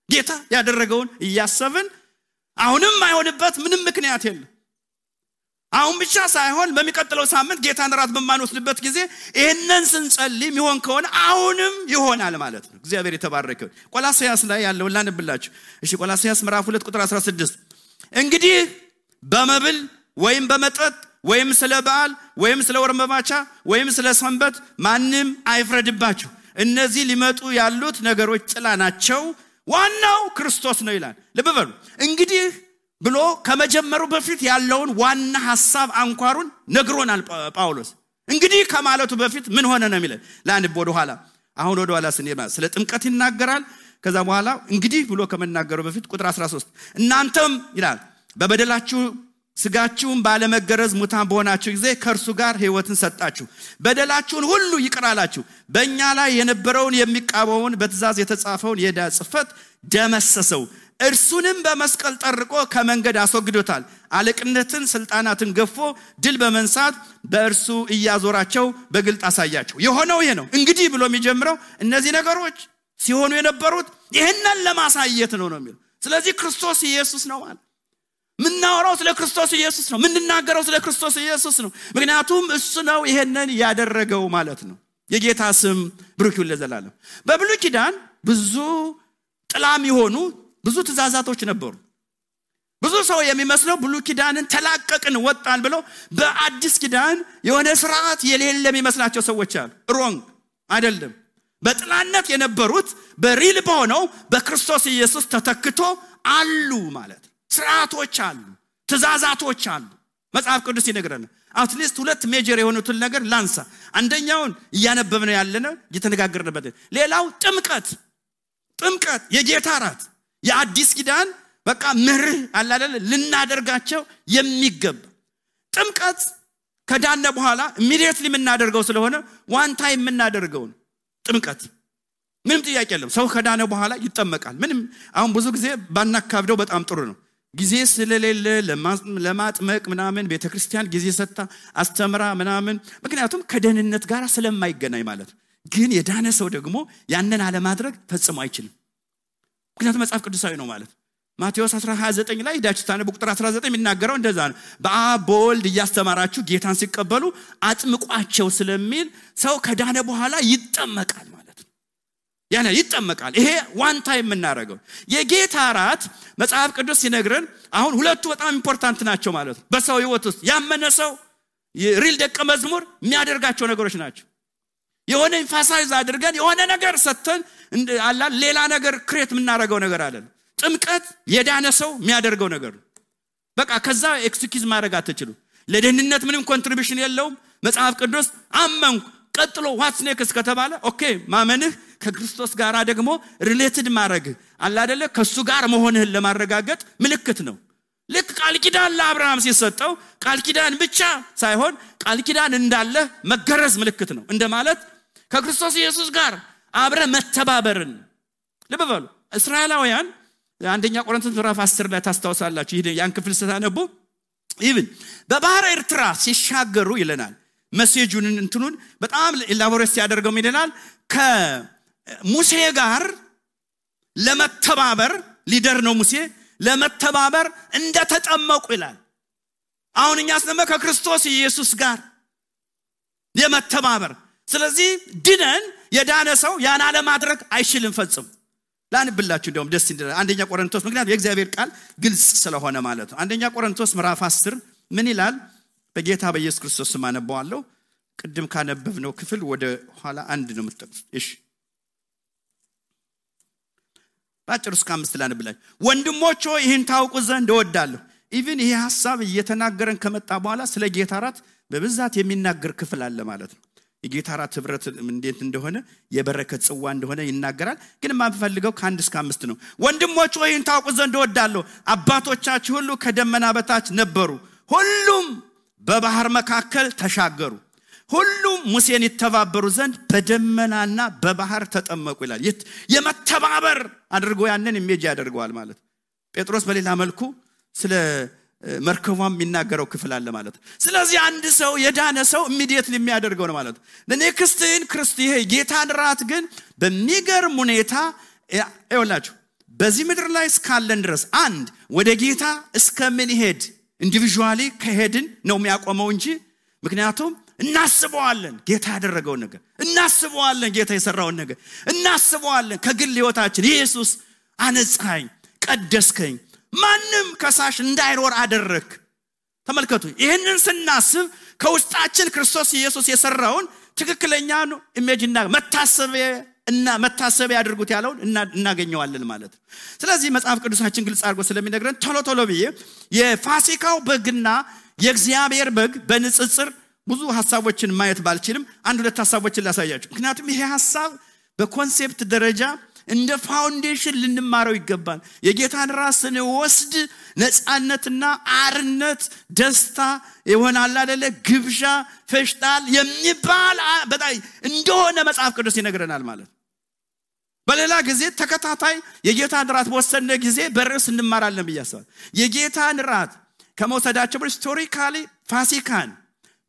ጌታ ያደረገውን እያሰብን አሁንም አይሆንበት ምንም ምክንያት የለም አሁን ብቻ ሳይሆን በሚቀጥለው ሳምንት ጌታን ራስ በማንወስድበት ጊዜ ይሄንን ስንጸልይ ይሆን ከሆነ አሁንም ይሆናል ማለት ነው እግዚአብሔር የተባረከው ቆላስይስ ላይ ያለው ላንብላችሁ እሺ ቆላስይስ ምዕራፍ 2 ቁጥር 16 እንግዲህ በመብል ወይም በመጠጥ ወይም ስለ በዓል ወይም ስለ ወር መባቻ ወይም ስለ ሰንበት ማንም አይፍረድባችሁ እነዚህ ሊመጡ ያሉት ነገሮች ጥላ ናቸው ዋናው ክርስቶስ ነው ይላል ልብ በሉ እንግዲህ ብሎ ከመጀመሩ በፊት ያለውን ዋና ሐሳብ አንኳሩን ነግሮናል ጳውሎስ እንግዲህ ከማለቱ በፊት ምን ሆነ ነው የሚለው ላንብ ወደ ኋላ ስንሄድ ስለ ጥምቀት ይናገራል ከዛ በኋላ እንግዲህ ብሎ ከመናገሩ በፊት ቁጥር 13 እናንተም ይላል በበደላችሁ ስጋችሁን ባለመገረዝ ሙታን በሆናችሁ ጊዜ ከእርሱ ጋር ሕይወትን ሰጣችሁ በደላችሁን ሁሉ ይቅራላችሁ በእኛ ላይ የነበረውን የሚቃወመውን በትእዛዝ የተጻፈውን የዕዳ ጽሕፈት ደመሰሰው እርሱንም በመስቀል ጠርቆ ከመንገድ አስወግዶታል አለቅነትን ስልጣናትን ገፎ ድል በመንሳት በእርሱ እያዞራቸው በግልጥ አሳያቸው የሆነው ይሄ ነው እንግዲህ ብሎ የሚጀምረው እነዚህ ነገሮች ሲሆኑ የነበሩት ይሄንን ለማሳየት ነው የሚለው ስለዚህ ክርስቶስ ኢየሱስ ነው ማለት ምንናወራው ስለ ክርስቶስ ኢየሱስ ነው ምንናገረው ስለ ክርስቶስ ኢየሱስ ነው ምክንያቱም እሱ ነው ይሄንን ያደረገው ማለት ነው የጌታ ስም ብሩክ ይሁን ለዘላለም በብሉይ ኪዳን ብዙ ጥላም ይሆኑ ብዙ ትእዛዛቶች ነበሩ ብዙ ሰው የሚመስለው ብሉይ ኪዳንን ተላቀቅን ወጣን ብለው በአዲስ ኪዳን የሆነ ስርዓት የሌለ የሚመስላቸው ሰዎች አሉ ሮንግ አይደለም በጥላነት የነበሩት በሪል በሆነው በክርስቶስ ኢየሱስ ተተክቶ አሉ ማለት ስርዓቶች አሉ ትእዛዛቶች አሉ መጽሐፍ ቅዱስ ይነግረናል አትሊስት ሁለት ሜጀር የሆኑትን ነገር ላንሳ አንደኛውን ያነበብነው ያለነው እየተነጋገርንበት ሌላው ጥምቀት የጌታ ራት የአዲስ ኪዳን በቃ ምርህ አላለ ልናደርጋቸው የሚገባ ጥምቀት ከዳነ በኋላ ኢሚዲየትሊ የምናደርገው ስለሆነ ዋን ታይም የምናደርገው ጥምቀት ምንም ጥያቄ የለም ሰው ከዳነ በኋላ ይጠመቃል ምንም አሁን ብዙ ጊዜ ባናካብደው በጣም ጥሩ ነው ጊዜ ስለሌለ ለማጥመቅ ምናምን ቤተክርስቲያን ጊዜ ሰጣ አስተምራ ምናምን ምክንያቱም ከደህንነት ጋር ስለማይገናኝ ማለት ግን የዳነ ሰው ደግሞ ያንን አለ ማድረግ ፈጽሞ አይችልም ምክንያቱም መጽሐፍ ቅዱሳዊ ነው ማለት ማቴዎስ 10:29 ላይ ዳችታነ ቁጥር 19 የሚናገረው እንደዛ ነው በአብ በወልድ እያስተማራችሁ ጌታን ሲቀበሉ አጥምቋቸው ስለሚል ሰው ከዳነ በኋላ ይጠመቃል ማለት ነው ያና ይጠመቃል። ይሄ ዋን ታይም የምናደርገው የጌታ ራት መጽሐፍ ቅዱስ ሲነግረን አሁን ሁለቱ በጣም ኢምፖርታንት ናቸው ማለት ነው። በሰው ህይወት ውስጥ ያመነ ሰው ሪል ደቀ መዝሙር የሚያደርጋቸው ነገሮች ናቸው። የሆነ ኢንፋሳይዝ አድርገን የሆነ ነገር ሰተን አላ ሌላ ነገር ክሬት የምናደርገው ነገር አለ። ጥምቀት የዳነ ሰው የሚያደርገው ነገር ነው። በቃ ከዛ ኤክስኪዩዝ ማድረግ አትችሉ። ለደህንነት ምንም ኮንትሪቢዩሽን የለውም። መጽሐፍ ቅዱስ አመንኩ ቀጥሎ ዋትስ ኔክስት ከተባለ ኦኬ ማመንህ ከክርስቶስ ጋር ደግሞ ሪሌትድ ማድረግ አለ አይደለ ከሱ ጋር መሆንህን ለማረጋገጥ ምልክት ነው። ልክ ቃል ኪዳን ለአብርሃም ሲሰጠው ቃል ኪዳን ብቻ ሳይሆን ቃል ኪዳን እንዳለ መገረዝ ምልክት ነው እንደማለት ከክርስቶስ ኢየሱስ ጋር አብረ መተባበርን ልብ በሉ። እስራኤላውያን አንደኛ ቆሮንቶስ ምዕራፍ 10 ላይ ታስታውሳላችሁ። ይሄ ያን ክፍል ስታነቡ ኢቭን በባህር ኤርትራ ሲሻገሩ ይለናል። መሴጁን እንትኑን በጣም ኢላቦሬት ያደርገው ይለናል። ከሙሴ ጋር ለመተባበር ሊደር ነው ሙሴ ለመተባበር እንደተጠመቁ ይላል። አሁን እኛስ ደግሞ ከክርስቶስ ኢየሱስ ጋር የመተባበር ስለዚህ ድነን የዳነ ሰው ያን አለ ማድረግ አይችልም ፈጽሞ። ላንብላችሁ እንደውም ደስ ይላል አንደኛ ቆሮንቶስ ምክንያቱም የእግዚአብሔር ቃል ግልጽ ስለሆነ ማለት ነው። አንደኛ ቆሮንቶስ ምዕራፍ 10 ምን ይላል? በጌታ በኢየሱስ ክርስቶስ ስም አነባዋለሁ። ቅድም ካነበብነው ክፍል ወደ ኋላ አንድ ነው የምትጠቅሱት። እሺ ባጭሩ እስከ 5 ላንብላችሁ። ወንድሞች ሆይ ይህን ታውቁ ዘንድ እወዳለሁ። ኢቭን ይሄ ሐሳብ እየተናገረን ከመጣ በኋላ ስለ ጌታ ራት በብዛት የሚናገር ክፍል አለ ማለት ነው። የጌታ ራት ህብረት እንዴት እንደሆነ የበረከት ጽዋ እንደሆነ ይናገራል። ግን ማንፈልገው ከ1 እስከ 5 ነው። ወንድሞች ሆይ ይህን ታውቁ ዘንድ እወዳለሁ። አባቶቻችሁ ሁሉ ከደመና በታች ነበሩ፣ ሁሉም በባህር መካከል ተሻገሩ፣ ሁሉም ሙሴን ይተባበሩ ዘንድ በደመናና በባህር ተጠመቁ ይላል። የመተባበር አድርጎ ያንን ኢሜጅ ያደርገዋል ማለት። ጴጥሮስ በሌላ መልኩ ስለ መርከቧም የሚናገረው ክፍል አለ ማለት። ስለዚህ አንድ ሰው የዳነ ሰው ኢሚዲየትሊ የሚያደርገው ነው ማለት። ለኔክስትን ክርስቲያን ጌታን ራት ግን በሚገርም ሁኔታ ይወላችሁ በዚህ ምድር ላይ እስካለን ድረስ አንድ ወደ ጌታ እስከምንሄድ ኢንዲቪጁዋሊ ከሄድን ነው የሚያቆመው እንጂ ምክንያቱም እናስበዋለን ጌታ ያደረገውን ነገር፣ እናስበዋለን ጌታ የሰራውን ነገር፣ እናስበዋለን ከግል ህይወታችን ኢየሱስ አነጻኝ፣ ቀደስከኝ፣ ማንም ከሳሽ እንዳይኖር አደረክ። ተመልከቱ ይሄንን ስናስብ ከውስጣችን ክርስቶስ ኢየሱስ የሰራውን ትክክለኛ ነው ኢሜጅና መታሰቢያ ያድርጉት ያለውን እናገኘዋለን ማለት ነው። ስለዚህ መጽሐፍ ቅዱሳችን ግልጽ አድርጎ ስለሚነግረን ቶሎ ብዬ የፋሲካው በግና የእግዚአብሔር በግ በንጽጽር ብዙ ሐሳቦችን ማየት ባልችልም አንድ ሁለት ሐሳቦችን ላሳያችሁ። ምክንያቱም ይሄ ሐሳብ በኮንሴፕት ደረጃ እንደ ፋውንዴሽን ልንማረው ይገባል። የጌታን ራስን ወስድ ነፃነትና አርነት ደስታ ይሆናል አይደለ ግብዣ ፈሽታል የሚባል በጣም እንደሆነ መጽሐፍ ቅዱስ ይነግረናል ማለት። በሌላ ጊዜ ተከታታይ የጌታን ራት በወሰነ ጊዜ በርዕስ እንማራለን ብያስባል። የጌታን ራት ከመውሰዳቸው ሂስቶሪካሊ ፋሲካን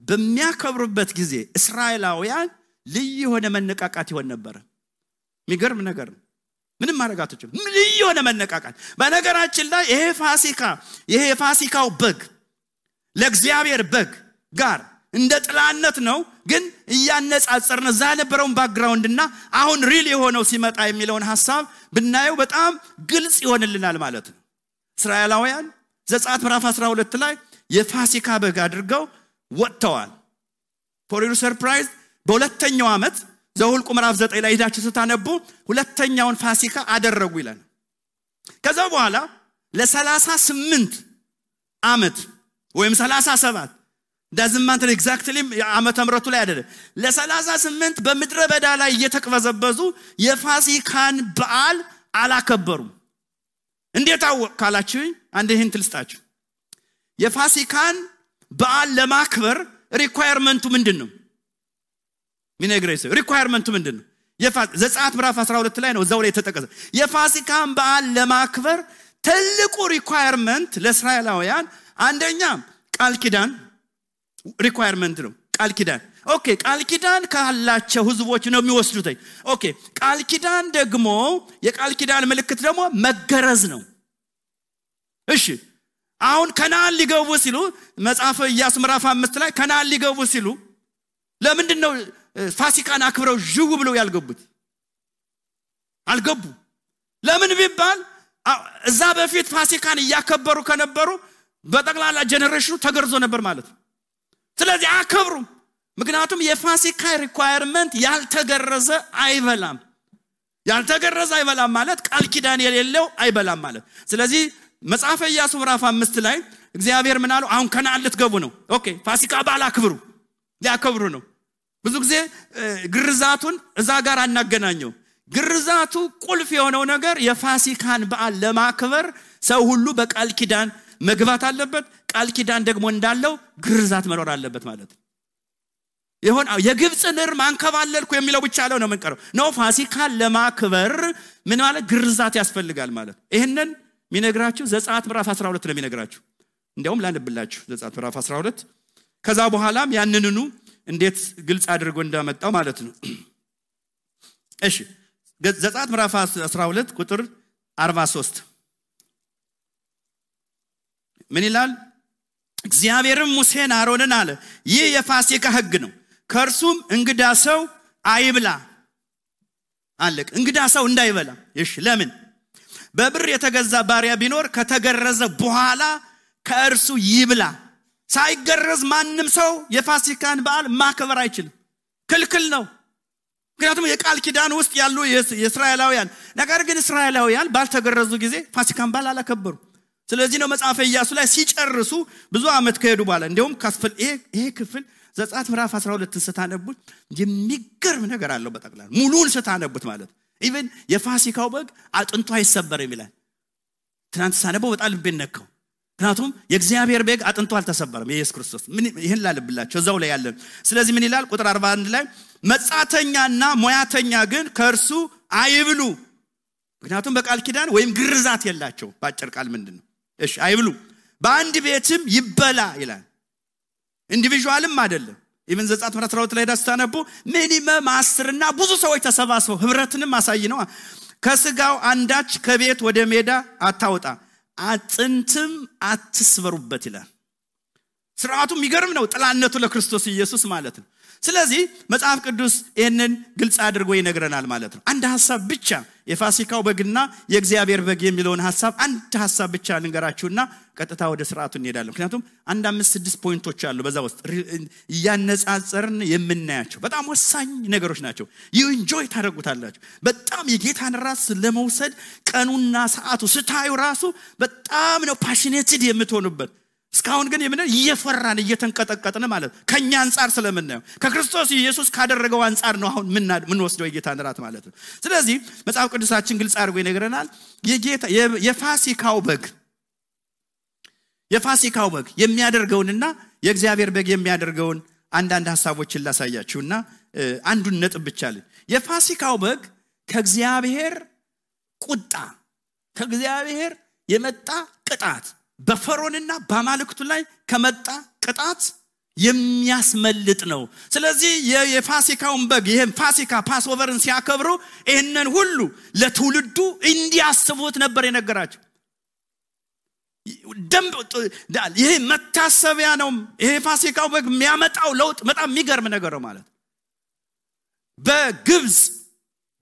በሚያከብሩበት ጊዜ እስራኤላውያን ልዩ የሆነ መነቃቃት ይሆን ነበር። የሚገርም ነገር ነው። ምንም ማረጋቶች ልዩ የሆነ መነቃቃት። በነገራችን ላይ ይሄ ፋሲካው በግ ለእግዚአብሔር በግ ጋር እንደ ጥላነት ነው። ግን እያነጻጸርን እዛ ነበረውን ባክግራውንድና አሁን ሪል የሆነው ሲመጣ የሚለውን ሐሳብ ብናየው በጣም ግልጽ ይሆንልናል ማለት ነው። እስራኤላውያን ዘጸአት ምዕራፍ 12 ላይ የፋሲካ በግ አድርገው ወጥተዋል። ፎር ዩር ሰርፕራይዝ በሁለተኛው ዓመት ዘኍልቍ ምዕራፍ 9 ላይ ሄዳችሁ ስታነቡ ሁለተኛውን ፋሲካ አደረጉ ይላል። ከዛ በኋላ ለ38 ዓመት ወይም 37 ዳዝማንት ኤግዛክትሊ ዓመተ ምሕረቱ ላይ አይደለም ለ38 በምድረ በዳ ላይ እየተቅበዘበዙ የፋሲካን በዓል አላከበሩም። እንዴት አወቃላችሁ? አንድ ይህን ትልስጣችሁ። የፋሲካን በዓል ለማክበር ሪኳየርመንቱ ምንድነው? ሚነግሬስ ሪኳየርመንቱ ምንድነው? ዘጸአት ምዕራፍ 12 ላይ ነው እዛው ላይ ተጠቀሰ። የፋሲካን በዓል ለማክበር ትልቁ ሪኳየርመንት ለእስራኤላውያን አንደኛ ቃል ኪዳን ሪኳየርመንት ነው። ቃል ኪዳን ኦኬ ቃል ኪዳን ካላቸው ህዝቦች ነው የሚወስዱት። ኦኬ ቃል ኪዳን ደግሞ የቃል ኪዳን ምልክት ደግሞ መገረዝ ነው። እሺ አሁን ከነዓን ሊገቡ ሲሉ መጽሐፈ ኢያሱ ምዕራፍ 5 ላይ ከነዓን ሊገቡ ሲሉ ለምንድን ነው ፋሲካን አክብረው ጅው ብለው ያልገቡት? አልገቡ ለምን ቢባል እዛ በፊት ፋሲካን ያከበሩ ከነበሩ በጠቅላላ ጀነሬሽኑ ተገርዞ ነበር ማለት ነው ስለዚህ አከብሩም ምክንያቱም የፋሲካ ሪኳየርመንት ያልተገረዘ አይበላም ማለት ቃል ኪዳን የሌለው አይበላም ማለት ስለዚህ መጽሐፈ ኢያሱ ምዕራፍ 5 ላይ እግዚአብሔር ምን አለው አሁን ከነዓን ልትገቡ ነው ኦኬ ፋሲካ በዓል አክብሩ ሊያከብሩ ነው ብዙ ጊዜ ግርዛቱን እዛ ጋር አናገናኘው ግርዛቱ ቁልፍ የሆነው ነገር የፋሲካን በዓል ለማክበር ሰው ሁሉ በቃል ኪዳን መግባት አለበት ቃል ኪዳን ደግሞ እንዳለው ግርዛት መኖር አለበት ማለት ይሁን የግብጽን እርም አንከባለልኩ የሚለው ብቻ ነው መንቀረው ነው ፋሲካን ለማክበር ምን ማለት ግርዛት ያስፈልጋል ማለት ይሄንን ሚነግራችሁ ዘጸአት ምዕራፍ 12 ነው ሚነግራችሁ እንዴውም ላንብላችሁ ዘጸአት ምዕራፍ 12 ከዛ በኋላም ያንንኑ እንዴት ግልጽ አድርጎ እንዳመጣው ማለት ነው እሺ ዘጸአት ምዕራፍ 12 ቁጥር 43 ምን ይላል እግዚአብሔርም ሙሴን አሮንን አለ ይህ የፋሲካ ሕግ ነው ከርሱም እንግዳ ሰው አይብላ አለቅ እንግዳ ሰው እንዳይበላ እሺ ለምን በብር የተገዛ ባሪያ ቢኖር ከተገረዘ በኋላ ከእርሱ ይብላ ሳይገረዝ ማንንም ሰው የፋሲካን በዓል ማክበር አይችልም ክልክል ነው ምክንያቱም የቃል ኪዳን ውስጥ ያሉ የእስራኤላውያን ነገር ግን እስራኤላውያን ባልተገረዙ ጊዜ ፋሲካን በዓል አላከበሩ ስለዚህ ነው መጽሐፈ ኢያሱ ላይ ሲጨርሱ ብዙ አመት ከሄዱ በኋላ እንደውም ካስፈል ይሄ ክፍል ዘጸአት ምዕራፍ 12 ስታነቡት የሚገርም ነገር አለው በጠቅላላ ሙሉን ስታነቡት ማለት ኢቭን የፋሲካው በግ አጥንቱ አይሰበርም ይላል ትናንት ሳነበው በጣም ልቤን ነካው ምክንያቱም የእግዚአብሔር በግ አጥንቱ አልተሰበረም ኢየሱስ ክርስቶስ ምን ይሄን ላልብላችሁ እዛው ላይ ያለ ስለዚህ ምን ይላል ቁጥር 41 ላይ መጻተኛና ሞያተኛ ግን ከርሱ አይብሉ ምክንያቱም በቃል ኪዳን ወይም ግርዛት የላቸው ባጭር ቃል ምንድነው እሺ አይብሉ በአንድ ቤትም ይበላ ይላል ኢንዲቪጁዋልም አይደለም ኢቭን ዘጸአት ምዕራፍ 12 ላይ ዳስታነቡ ሚኒመም 10 እና ብዙ ሰዎች ተሰባስበው ህብረትንም ማሳይ ነው ከስጋው አንዳች ከቤት ወደ ሜዳ አታውጣ አጥንትም አትስበሩበት ይላል ስርዓቱ የሚገርም ነው ጥላነቱ ለክርስቶስ ኢየሱስ ማለት ነው ስለዚህ መጽሐፍ ቅዱስ ይሄንን ግልጽ አድርጎ ይነግረናል ማለት ነው አንድ ሐሳብ ብቻ የፋሲካው በግና የእግዚአብሔር በግ የሚለውን ሐሳብ አንድ ሐሳብ ብቻ ልንገራችሁና ቀጥታ ወደ ስርዓቱ እንሄዳለን ምክንያቱም አንድ 5-6 ፖይንቶች አሉ በዛ ውስጥ ያነጻጸርን የምናያቸው በጣም ወሳኝ ነገሮች ናቸው you enjoy ታደርጉታላችሁ በጣም የጌታን ራስ ለመውሰድ ቀኑና ሰዓቱ ስታዩ ራሱ በጣም ነው ፓሽኔትድ የምትሆኑበት እስካሁን ግን የምን እየፈራን እየተንቀጠቀጥን ማለት ከኛ አንፃር ስለምናየው ከክርስቶስ ኢየሱስ ካደረገው አንፃር ነው አሁን ምን ወስደው የጌታን ራት ማለት ነው ስለዚህ መጽሐፍ ቅዱሳችን ግልጽ አድርጎ ይነግረናል የጌታ የፋሲካው በግ የሚያደርገውንና የእግዚአብሔር በግ የሚያደርገውን አንዳንድ ሐሳቦችን ላሳያችሁና አንዱን ነጥብ ብቻ አለ የፋሲካው በግ ከእግዚአብሔር ቁጣ ከእግዚአብሔር የመጣ ቅጣት በፈርዖንና በአማልክቱ ላይ ከመጣ ቅጣት የሚያስመልጥ ነው ስለዚህ የፋሲካውን በግ ይሄን ፋሲካ ፓስኦቨርን ሲያከብሩ ይሄንን ሁሉ ለትውልዱ እንዲያስቡት ነበር የነገራቸው ይሄ መታሰቢያ ነው ይሄ ፋሲካው በግ የሚያመጣው ለውጥ በጣም የሚገርም ነገር ነው ማለት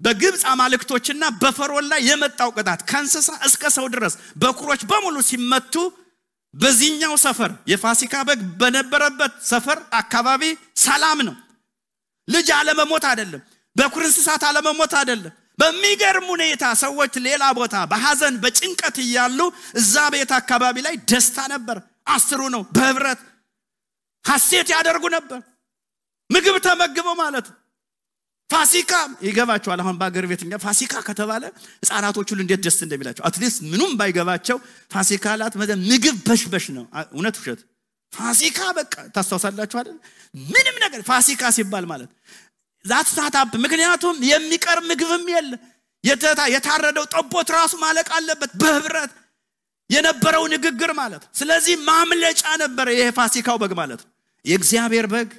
በግብጽ አማልክቶችና በፈርዖን ላይ የመጣው ቅጣት ከእንስሳ እስከ ሰው ድረስ በኩሮች በሙሉ ሲመቱ በዚህኛው ሰፈር የፋሲካ በግ በነበረበት ሰፈር አካባቢ ሰላም ነው ልጅ አለመሞት አይደለም በኩር እንስሳት አለመሞት አይደለም በሚገርም ሁኔታ ሰዎች ሌላ ቦታ በሐዘን በጭንቀት ይያሉ እዛ ቤት አካባቢ ላይ ደስታ ነበር አስሩ ነው በህብረት ሐሴት ያደርጉ ነበር ምግብ ተመግበው ማለት ፋሲካ ይገባቸዋል አሁን ባገር ቤትኛ ፋሲካ ከተባለ ህፃናቶቹ እንዴት ደስ እንደሚላቸው አትሊስት ምንም ባይገባቸው ፋሲካላት ምግብ በሽበሽ ነው እውነት ውሸት ፋሲካ በቃ ታስተውሳላችሁ አይደል ምንም ነገር ፋሲካ ሲባል ማለት ዛት ሳታብ ምክንያቱም የሚቀር ምግብም የለ የታረደው ጠቦት ራሱ ማለቅ አለበት በህብረት የነበረው ንግግር ማለት ስለዚህ ማምለጫ ነበር ይሄ ፋሲካው በግ ማለት የእግዚአብሔር በግ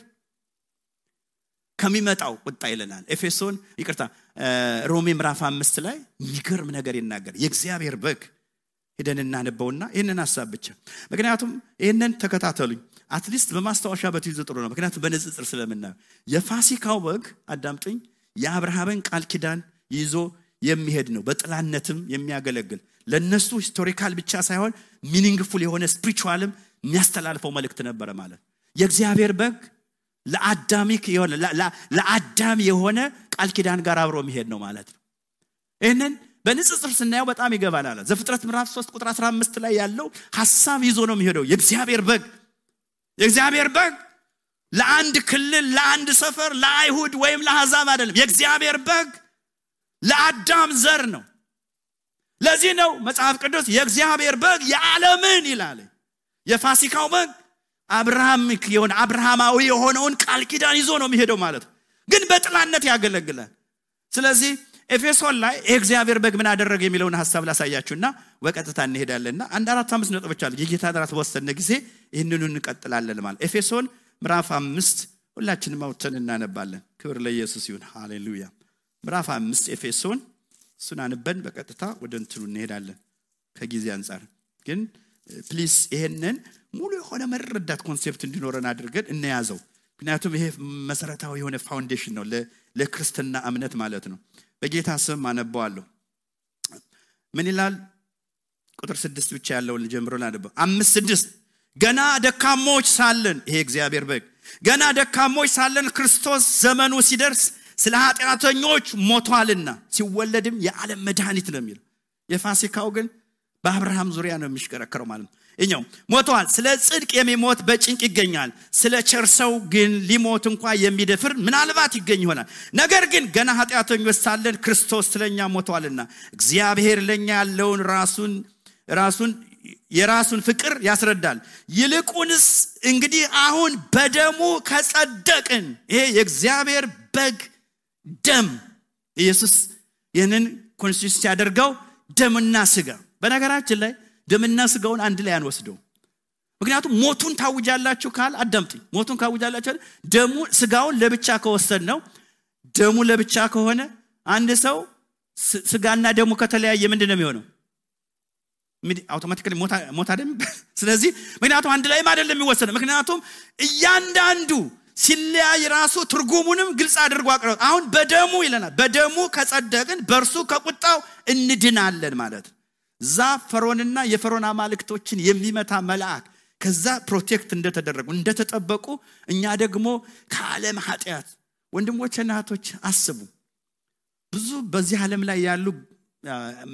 ከሚመጣው ቁጣ ይለናል ኤፌሶን ሮሜ ምዕራፍ 5 ላይ የሚገርም ነገር ይናገር የእግዚአብሔር በግ ሄደን እናነበውና ይሄንን ሐሳብ ብቻ ምክንያቱም ይሄንን ተከታተሉኝ አትሊስት በማስተዋሻ በትይዙ ጥሩ ነው ምክንያቱም በንጽጽር ስለምናየው የፋሲካው በግ አዳምጡኝ የአብርሃምን ቃል ኪዳን ይዞ የሚሄድ ነው በጥላነትም የሚያገለግል ለነሱ ሂስቶሪካል ብቻ ሳይሆን ሚኒንግፉል የሆነ ስፒሪቹዋልም የሚያስተላልፈው መልእክት ነበር ማለት የእግዚአብሔር በግ ለአዳም የሆነ ቃል ኪዳን ጋር አብሮ የሚሄድ ነው ማለት ነው ይሄንን በንጽጽር ስናየው በጣም ይገባናል ዘፍጥረት ምዕራፍ 3 ቁጥር 15 ላይ ያለው ሐሳብ ይዞ ነው የሚሄደው የእግዚአብሔር በግ ለአንድ ክልል ለአንድ ሰፈር ለአይሁድ ወይም ለአሕዛብ አይደለም የእግዚአብሔር በግ ለአዳም ዘር ነው ለዚህ ነው መጽሐፍ ቅዱስ የእግዚአብሔር በግ የዓለምን ይላል የፋሲካው በግ አብርሃማዊ የሆነውን ቃል ኪዳን ይዞ ነው የሚሄደው ማለት ግን በጥላነት ያገለግላል ስለዚህ ኤፌሶን ላይ የእግዚአብሔር በግ ምን አደረገ የሚለውን ሐሳብ ላሳያችሁና በቀጥታ እንሄዳለንና 1-4-5 ነጥቦች አሉ የጌታ ዳራት ወሰነ ጊዜ ይሄንን እንቀጥላለን ማለት ኤፌሶን ምዕራፍ 5 ሁላችንም አውጥተን እናነባለን ክብር ለኢየሱስ ይሁን ሃሌሉያ ምዕራፍ 5 ኤፌሶን እሱን አንበን በቀጥታ ወደ እንትኑ እንሄዳለን ከጊዜ አንፃር ግን ፕሊዝ ይሄንን ሙሉ የሆነ መረዳት ኮንሴፕት እንዲኖረን አድርገን እንያዘው ምክንያቱም ይሄ መሰረታዊ የሆነ ፋውንዴሽን ነው ለክርስትና እምነት ማለት ነው በጌታ ስም አነባዋለሁ ምን ይላል ቁጥር 6 ብቻ ያለውን ጀምሮና አነባው 5:6 ገና ደካሞች ሳለን ይሄ እግዚአብሔር በግ ገና ደካሞች ሳለን ክርስቶስ ዘመኑ ሲደርስ ስለ ኃጢአተኞች ሞቷልና ሲወለድም የዓለም መድኃኒት ነው የሚለው የፋሲካው ግን በአብርሃም ዙሪያ ነው የሚሽከረከረው ማለት ነው እኛው ሞቷል ስለ ጽድቅ የሚሞት በጭንቅ ይገኛል ስለ ቸርሰው ግን ሊሞት እንኳን የሚደፍር ምናልባት ይገኝ ይሆናል ነገር ግን ገና ኃጢአተኞች ሳለን ክርስቶስ ስለኛ ሞቷልና እግዚአብሔር ለኛ ያለውን የራሱን ፍቅር ያስረዳል ይልቁንስ እንግዲህ አሁን በደሙ ከጸደቅን ይሄ የእግዚአብሔር በግ ደም ኢየሱስ ይህንን ኮንሲስት ያደርገው ደምና ስጋ በነገራችን ላይ ደምና ስጋውን አንድ ላይ አንወስደው ምክንያቱም ሞቱን ታውጃላችሁ ካል አዳምጡኝ ሞቱን ካውጃላችሁ ደሙ ስጋውን ለብቻ ከወሰድ ነው ደሙ ለብቻ ከሆነ አንድ ሰው ስጋና ደሙ ከተለያየ ምንድነው የሚሆነው አውቶማቲካሊ ሞት አይደለም ስለዚህ ምክንያቱም አንድ ላይ አይደለም የሚወሰነው ምክንያቱም እያንዳንዱ ሲለያይ ራሱ ትርጉሙንም ግልጽ አድርጎ አቀረው አሁን በደሙ ይለናል በደሙ ከጸደቅን በርሱ ከቁጣው እንድናለን ማለት ፈርዖንና የፈርዖን አማልክቶችን የሚመታ መልአክ ከዛ ፕሮቴክት እንደተጠበቁ እኛ ደግሞ ከዓለም ኃጢአት ወንድሞችና እህቶች አስቡ ብዙ በዚህ ዓለም ላይ ያሉ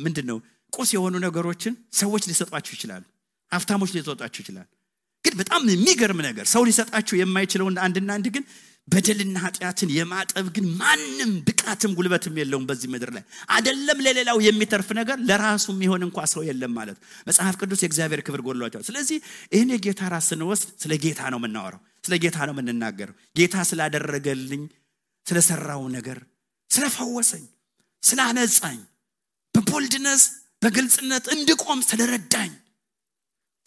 ምንድነው ቁስ የሆኑ ነገሮችን ሰዎች ሊሰጧቸው ይችላሉ ሀብታሞች ሊሰጧቸው ይችላሉ ግን በጣም የሚገርም ነገር ሰው ሊሰጣቸው የማይችለው አንድ ግን በደልና ኃጢአትን የማጠብ ግን ማንም ብቃትም ጉልበትም የለውም በዚህ ምድር ላይ አይደለም ለሌላው የሚተርፍ ነገር ለራሱ የሚሆን እንኳን ሰው የለም ማለት መጽሐፍ ቅዱስ የእግዚአብሔር ክብር ጎድሏቸዋል ስለዚህ ይሄን የጌታ ራስን ወስድ ስለ ጌታ ነው የምናወራው ስለ ጌታ ነው የምንናገረው ጌታ ስላደረገልኝ ስለሰራው ነገር ስለፈወሰኝ ስላነጻኝ በቦልድነስ በግልጽነት እንድቆም ስለረዳኝ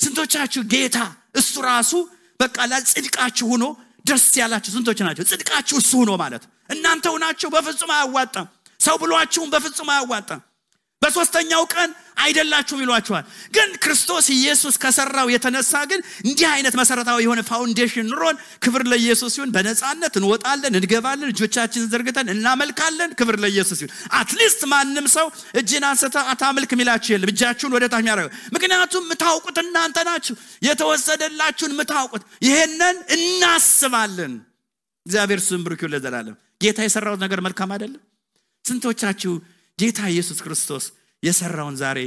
ስንቶቻችሁ ጌታ እሱ ራሱ በቃ ለጽድቃችሁ ሆኖ ደስ ያላችሁ ስንቶች ናቸው ጽድቃችሁ እሱ ሆኖ ማለት እናንተው ናችሁ በፍጹም አያዋጣም ሰው ብሏችሁም በፍጹም አያዋጣም በሶስተኛው ቀን አይደላችሁም ይሏችኋል ግን ክርስቶስ ኢየሱስ ከሰራው የተነሳ ግን እንዲህ አይነት መሰረታዊ የሆነ ፋውንዴሽን ኑሮን ክብር ለኢየሱስ ይሁን በነጻነት እንወጣለን እንገባለን እጆቻችንን ዘርግተን እናመልካለን ክብር ለኢየሱስ ይሁን አትሊስት ማንም ሰው እጅን አንስተ አታምልክ ሚላችሁ የለም እጃችሁን ወደ ታች ያረጋው ምክንያቱም ምታውቁት እናንተ ናችሁ የተወሰደላችሁን ምታውቁት ይሄንን እናስባለን እግዚአብሔር ስም ብሩክ ይሁን ለዘላለም ጌታ የሰራው ነገር መልካም አይደለም ስንቶቻችሁ ጌታ ኢየሱስ ክርስቶስ የሰራውን ዛሬ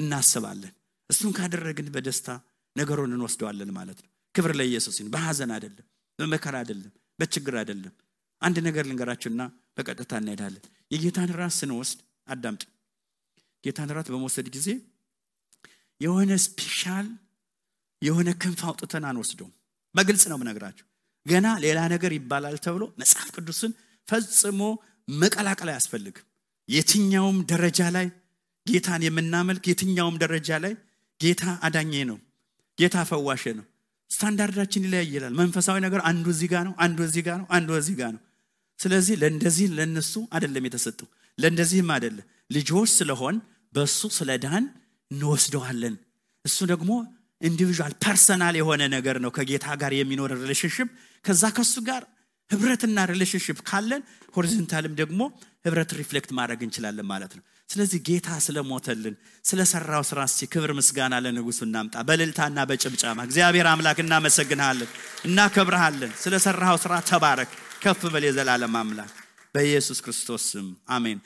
እናስባለን እሱን ካደረግን በደስታ ነገሩን እንወስደዋለን ማለት ነው ክብር ለኢየሱስ ይሁን በሐዘን አይደለም በመከራ አይደለም በችግር አይደለም አንድ ነገር ልንገራችሁና በቀጥታ እንሄዳለን የጌታን ራስ ስንወስድ አዳምጡ ጌታን ራስ በመውሰድ ጊዜ የሆነ ስፔሻል የሆነ ክንፍ አውጥተን አንወስደውም በግልጽ ነው የምነግራችሁ ገና ሌላ ነገር ይባላል ተብሎ መጽሐፍ ቅዱስን ፈጽሞ መቀላቀል አያስፈልግም የትኛውም ደረጃ ላይ ጌታን የምናመልክ የትኛውም ደረጃ ላይ ጌታ አዳኜ ነው ጌታ ፈዋሽ ነው ስታንዳርዳችን ይለያያል መንፈሳዊ ነገር አንዱ እዚህ ጋር ነው አንዱ እዚህ ጋር ነው አንዱ እዚህ ጋር ነው ስለዚህ ለእንደዚህ ለነሱ አይደለም የተሰጠው ለእንደዚህም አይደለም ልጆች ስለሆን በሱ ስለዳን እንወስደዋለን እሱ ደግሞ ኢንዲቪጁዋል ፐርሰናል የሆነ ነገር ነው ከጌታ ጋር የሚኖር ሪሌሽንሺፕ ከዛ ከሱ ጋር ህብረትና ሪሌሽንሺፕ ካለን ሆሪዞንታልም ደግሞ ህብረት ሪፍሌክት ማድረግ እንችላለን ማለት ነው ስለዚህ ጌታ ስለሞተልን ስለሰራው ስራ እስቲ ክብር ምስጋና ለንጉሱ እናምጣ በእልልታና በጭብጨባ። እግዚአብሔር አምላክ እናመሰግናለን እናከብርሃለን። ስለሰራው ስራ ተባረክ ከፍ በል የዘላለም አምላክ በኢየሱስ ክርስቶስ ስም አሜን።